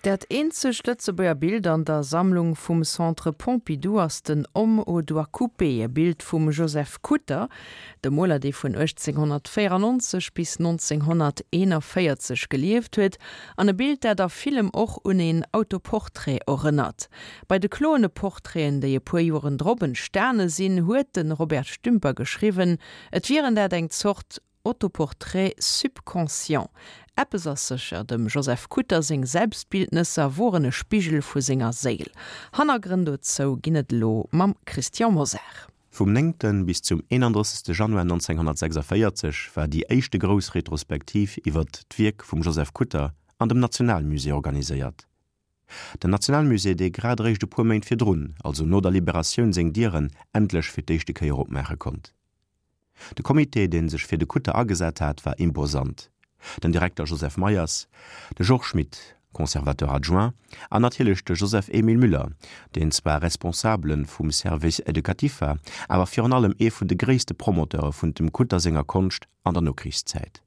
Dat eenzegt Lëtzebuerger Bild an der Sammlung vum Centre Pompidou ass den Homme aux doigts coupés, e Bild vum Joseph Kutter, dem Moler, dee vun 1894 bis 1941 gelieft huet, an e Bild, dat a villem och un een Autoportrait erënnert. Bei de kloene Portraiten, déi e puer Joren drop entstane sinn, huet de Robert Stümper geschriwwen, et wieren dat eng Zort Autoportrait subconscient. Eppes ass sécher, dem Joseph Kutter seng Selbstbildnesser woren e Spigel vu senger Séil. Hannergrënn dozou ginn et elo mam Christian Mosar. Vum 9. bis zum 31. Januar 1946 war déi éischte grouss Retrospektiv iwwert d'Wierk vum Joseph Kutter an dem Nationalmusée organiséiert. Den Nationalmusée, dee grad eréischt e puer Méint virdrun, also no der Liberatioun, seng Dieren endlech fir d'éischte Kéier opmaache konnt. De Comité, dee sech fir de Kutter agesat hat, war imposant, den Direkter Joseph Meyers, de Georges Schmit, Conservateur adjoint, an natierlech de Joseph-Émile Müller, deen zwar Responsabele vum Service éducatif war, awer virun allem ee vun de gréisste Promoteure vun dem Kutter senger Konscht an der Nokrichszäit.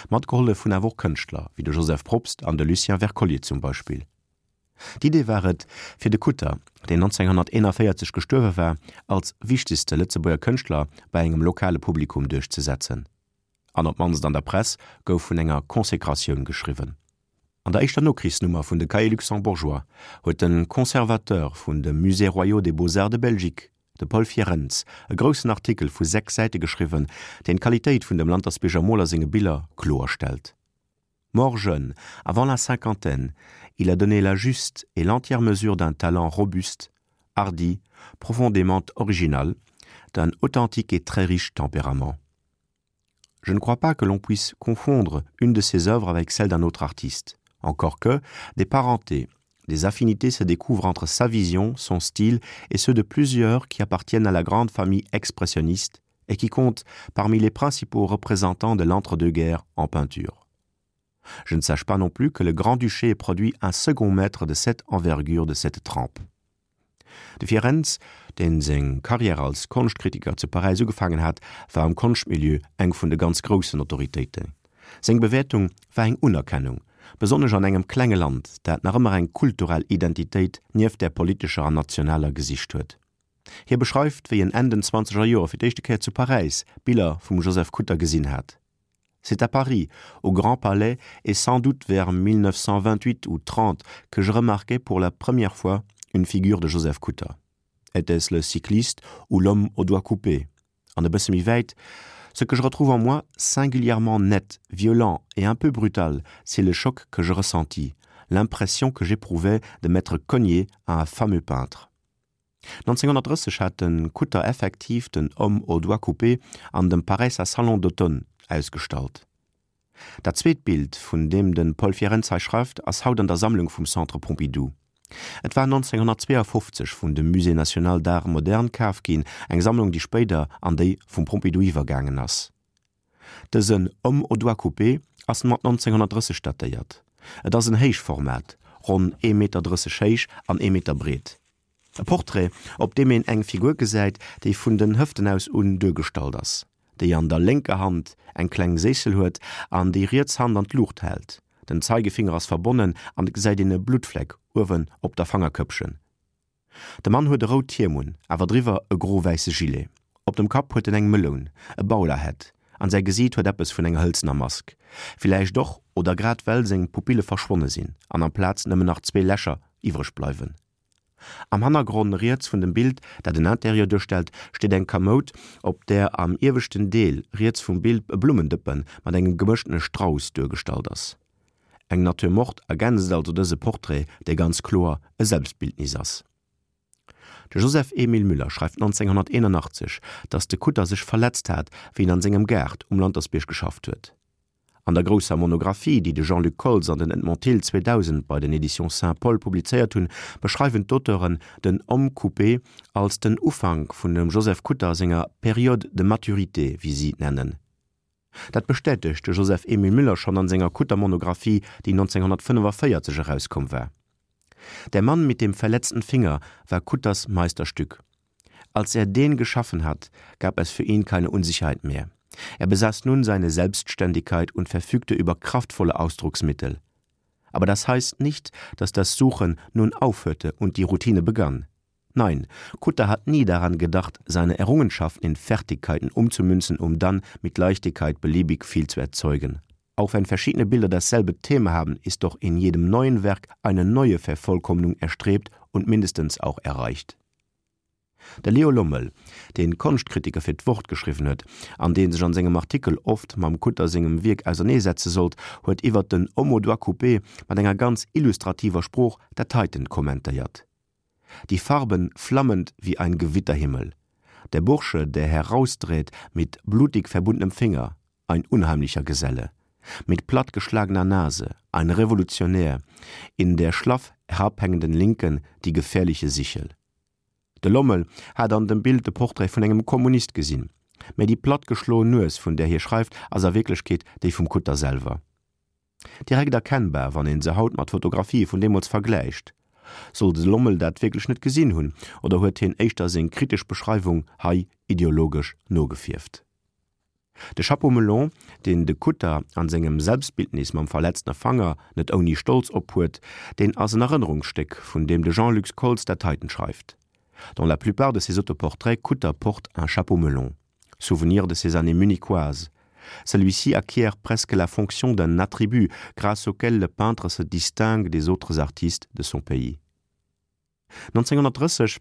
Matgehollef hunn awer och Kënschtler wéi de Joseph Probst an de Lucien Wercollier zum Beispill. D'Idee war et, fir de Kutter, deen 1941 gestuerwe war, als wichtegste Lëtzebuerger Kënschtler bei engem lokale Publikum duerchzesetzen. An op d'mannst an der Press gouf vun enger Consécratioun geschriwwen. An der éischter Nokrichsnummer vun de Cahiers luxembourgeois huet de Conservateur vun de Musées royaux des beaux-arts de Belgique, de Paul Fierens, e groussen Artikel vu 6 Säite geschriwwen, deen d'Qualitéit vun dem Lantersbierger Moler senge Biller kloer stellt. Mort jeune, avant la cinquantaine, il a donné la juste et l'entière mesure d'un talent robuste, hardi, profondément original, d'un authentique et très riche tempérament. Je ne crois pas que l'on puisse confondre une de ses œuvres avec celle d'un autre artiste. Encore que, des parentés, des affinités se découvrent entre sa vision, son style et ceux de plusieurs qui appartiennent à la grande famille expressionniste et qui comptent parmi les principaux représentants de l'entre-deux-guerres en peinture. Je ne sache pas non plus que le Grand-Duché ait produit un second maître de cette envergure de cette trempe. De Fierens, deen seng Karriär als Konschtkritiker zu Paräis ugefaangen hat, war am Konschtmilieu eng vun de ganz groussen Autoritéiten. Seng Bewäertung war eng Unerkennung, besonnesch an engem klenge Land, dat nach ëmmer eng kulturell Identitéit nieft där politescher an nationaler gesicht huet. Hie beschreift, wéi en Enn den zwanzeger Joer fir d'éischte Kéier zu Paräis Biller vum Joseph Kutter gesinn hat. C'est à Paris, au Grand Palais et sans doute vers 1928 ou 30 que je remarquai pour la première fois une figure de Joseph Kutter. Était-ce le cycliste ou l'homme aux doigts coupés? An e bësse méi wäit, Ce que je retrouve en moi singulièrement net, violent et un peu brutal, c'est le choc que je ressentis, l'impression que j'éprouvais de m'être cogné à un fameux peintre. 1930 hat de Kutter effektiv den Homme aux doigts coupés an dem Paräisser Salon d'automne ausgestallt. Dat zweet Bild, vun deem de Paul Fierens hei schreift, ass haut an der Sammlung vum Centre Pompidou. Et war 1952 vun dem Musée national d'art moderne kaf ginn, eng Sammlung, déi spéider an déi vum Pompidou iwwergaangen ass. Dësen Homme aux doigts coupés ass mat 1930 datéiert. Et ass en Héichformat, ronn ee Meter 30 héich an ee Meter breet. E Portrait, op deem een eng Figur gesäit, déi vun den Hëften aus un duergestallt ass, déi an der lénker Hand eng kleng Séissel huet an déi riets Hand an d'Luucht hält. Den Zeigefinger ass verbonnen an et gesäit een e Bluttfleck uewen op der Fangerkëppchen. De Mann huet e rout Hiem un, awer driwwer e gro-wäisse Gilet. Op dem Kapp huet en eng Meloun, e Bowlerhat, an säi Gesiit huet eppes vun enger hëlzener Mask. Villäicht och, oder grad well seng Pupille verschwonne sinn an amplaz nëmmen nach zwee Lächer iwwreg bleiwen. Am Hannergronn riets vun dem Bild, dat en Interieur duerstellt, steet eng Kamoud, op där am ieweschten Deel riets vum Bild e Blummendëppe mat engem gemëschtene Strauss duergestallt ass. Eng Nature morte ergänzt also dëse Portrait, dee ganz kloer e Selbstbildnis ass. De Joseph Emile Müller schreift 1981, datt de Kutter sech verletzt hat, wéi en an sengem Gaart um Lantersbierg geschafft huet. An der grousser Monographie, déi de Jean-Luc Koltz an den Edmond Thill 2000 bei den Éditions Saint-Paul publizéiert hunn, beschreiwen d'Auteuren den Homme coupé als den Ufank vun dem Joseph Kutter senger Période de maturité, wéi si et nennen. Dat bestätegt de Joseph Emile Müller schonn an senger Kutter-Monographie, déi 1945 erauskomm war. Der Mann mit dem verletzten Finger war Kutters Meisterstück. Als er den geschaffen hat, gab es für ihn keine Unsicherheit mehr. Er besaß nun seine Selbstständigkeit und verfügte über kraftvolle Ausdrucksmittel. Aber das heißt nicht, dass das Suchen nun aufhörte und die Routine begann. Nein, Kutter hat nie daran gedacht, seine Errungenschaften in Fertigkeiten umzumünzen, um dann mit Leichtigkeit beliebig viel zu erzeugen. Auch wenn verschiedene Bilder dasselbe Thema haben, ist doch in jedem neuen Werk eine neue Vervollkommnung erstrebt und mindestens auch erreicht. De Leo Lommel, dee Konschtkritiker fir d'Wort geschriwwen huet an dee sech an sengem Artikel oft mam Kutter sengem Wierk auserneesetze sollt, huet iwwert den Homme aux doigts coupés mat enger ganz illustrativer Sprooch dat heiten kommentéiert, Die Farben flammend wie ein Gewitterhimmel. Der Bursche, der herausdreht mit blutig verbundenem Finger, ein unheimlicher Geselle. Mit plattgeschlagener Nase, ein Revolutionär, in der schlaff herabhängenden Linken die gefährliche Sichel. De Lommel hat an dem Bild de Portrait vun engem Kommunist gesinn, mä déi plattgeschloen Nues, vun där hie schreift, ass a Wierklechkeet déi vum Kutter selwer. Direkt erkennbar, wann een se haut mat Fotografië vun deemools vergläicht. Soll de Lommel dat wierklech net gesinn hunn, oder huet hien éischter seng kritesch Beschreiwung hei ideologesch nogefierft? De Chapeau melon, deen de Kutter an sengem Selbstbildnis mam verletztene Fanger net ouni Stolz ophuet, deen ass en Erënnerungsstéck, vun deem de Jean-Luc Koltz dat heiten schreift, Dans la plupart de ses autoportraits, Kutter porte un chapeau melon, souvenir de ses années munichoises. Celui-ci acquiert presque la fonction d'un attribut grâce auquel le peintre se distingue des autres artistes de son pays. 1930,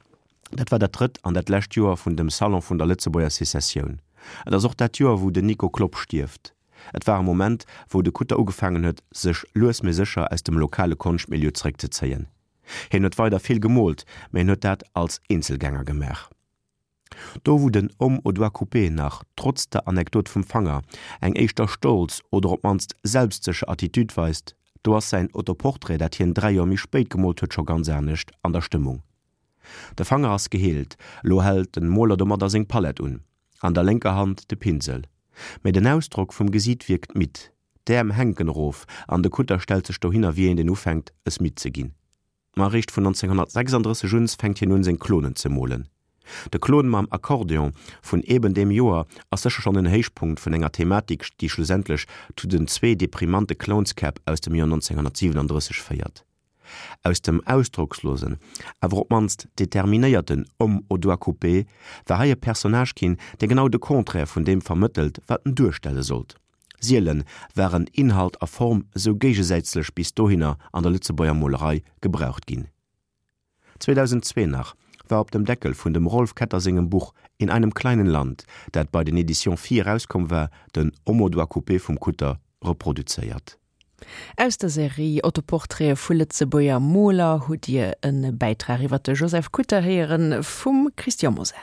dat war dat drëtt an dat lescht Joer vun dem Salon vun der Lëtzebuerger Secessioun. Et ass och dat Joer, wou den Nico Klopp stierft. Et war e Moment, wou de Kutter ugefaangen huet, sech lues mee sécher aus dem lokale Konschtmilieu zeréckzezéien. Hien huet weider vill gemoolt, mä hien huet dat als Eenzelgänger gemaach. Do wou den Homme aux doigts coupés nach, trotz der Anekdot vum Fanger, eng éischter stolz oder op d'mannst selbstsécher Attitude weist, do ass säin Autoportrait, dat hien 3 Joer méi spéit gemoolt huet, scho ganz anescht an der Stëmmung. De Fanger ass geheelt, elo hält den Moler domadder seng Palett un, an der lénker Hand de Pinsel. Mä den Ausdrock vum Gesiit wierkt midd, d'Äerm hänken erof an de Kutter stellt sech dohinner wéi een deen ufänkt es midd ze ginn. Ma eréischt vun 1936 un fänkt hien un seng Klonen ze molen. De Klon mam Akkordeon vun eben deem Joer ass sécher schonn en Héichpunkt vun enger Thematik déi schlussendlech zu den zwee deprimante Clownskäpp aus dem Joer 1937 féiert. Aus dem ausdrockslosen, awer op d'mannst determinéierten Homme aux doigts coupés war hei e Personnage ginn, dee genau de Contraire vun deem vermëttelt wat en duerstelle sollt. Sielen waren Inhalt a Form esou géigesätzlech bis dohinner an der Lëtzebuerger Molerei gebraucht ginn. 2002 nach war op dem Deckel vun dem Rolf Ketter sengem Buch In einem kleinen Land, dat bei den Editions Phi erauskomm war, den Homme aux doigts coupés vum Kutter reproduzéiert. Aus der Serie Autoportraite vu Lëtzebuerger Moler hutt Dir e Bäitrag iwwer de Joseph Kutter héieren vum Christian Mosar.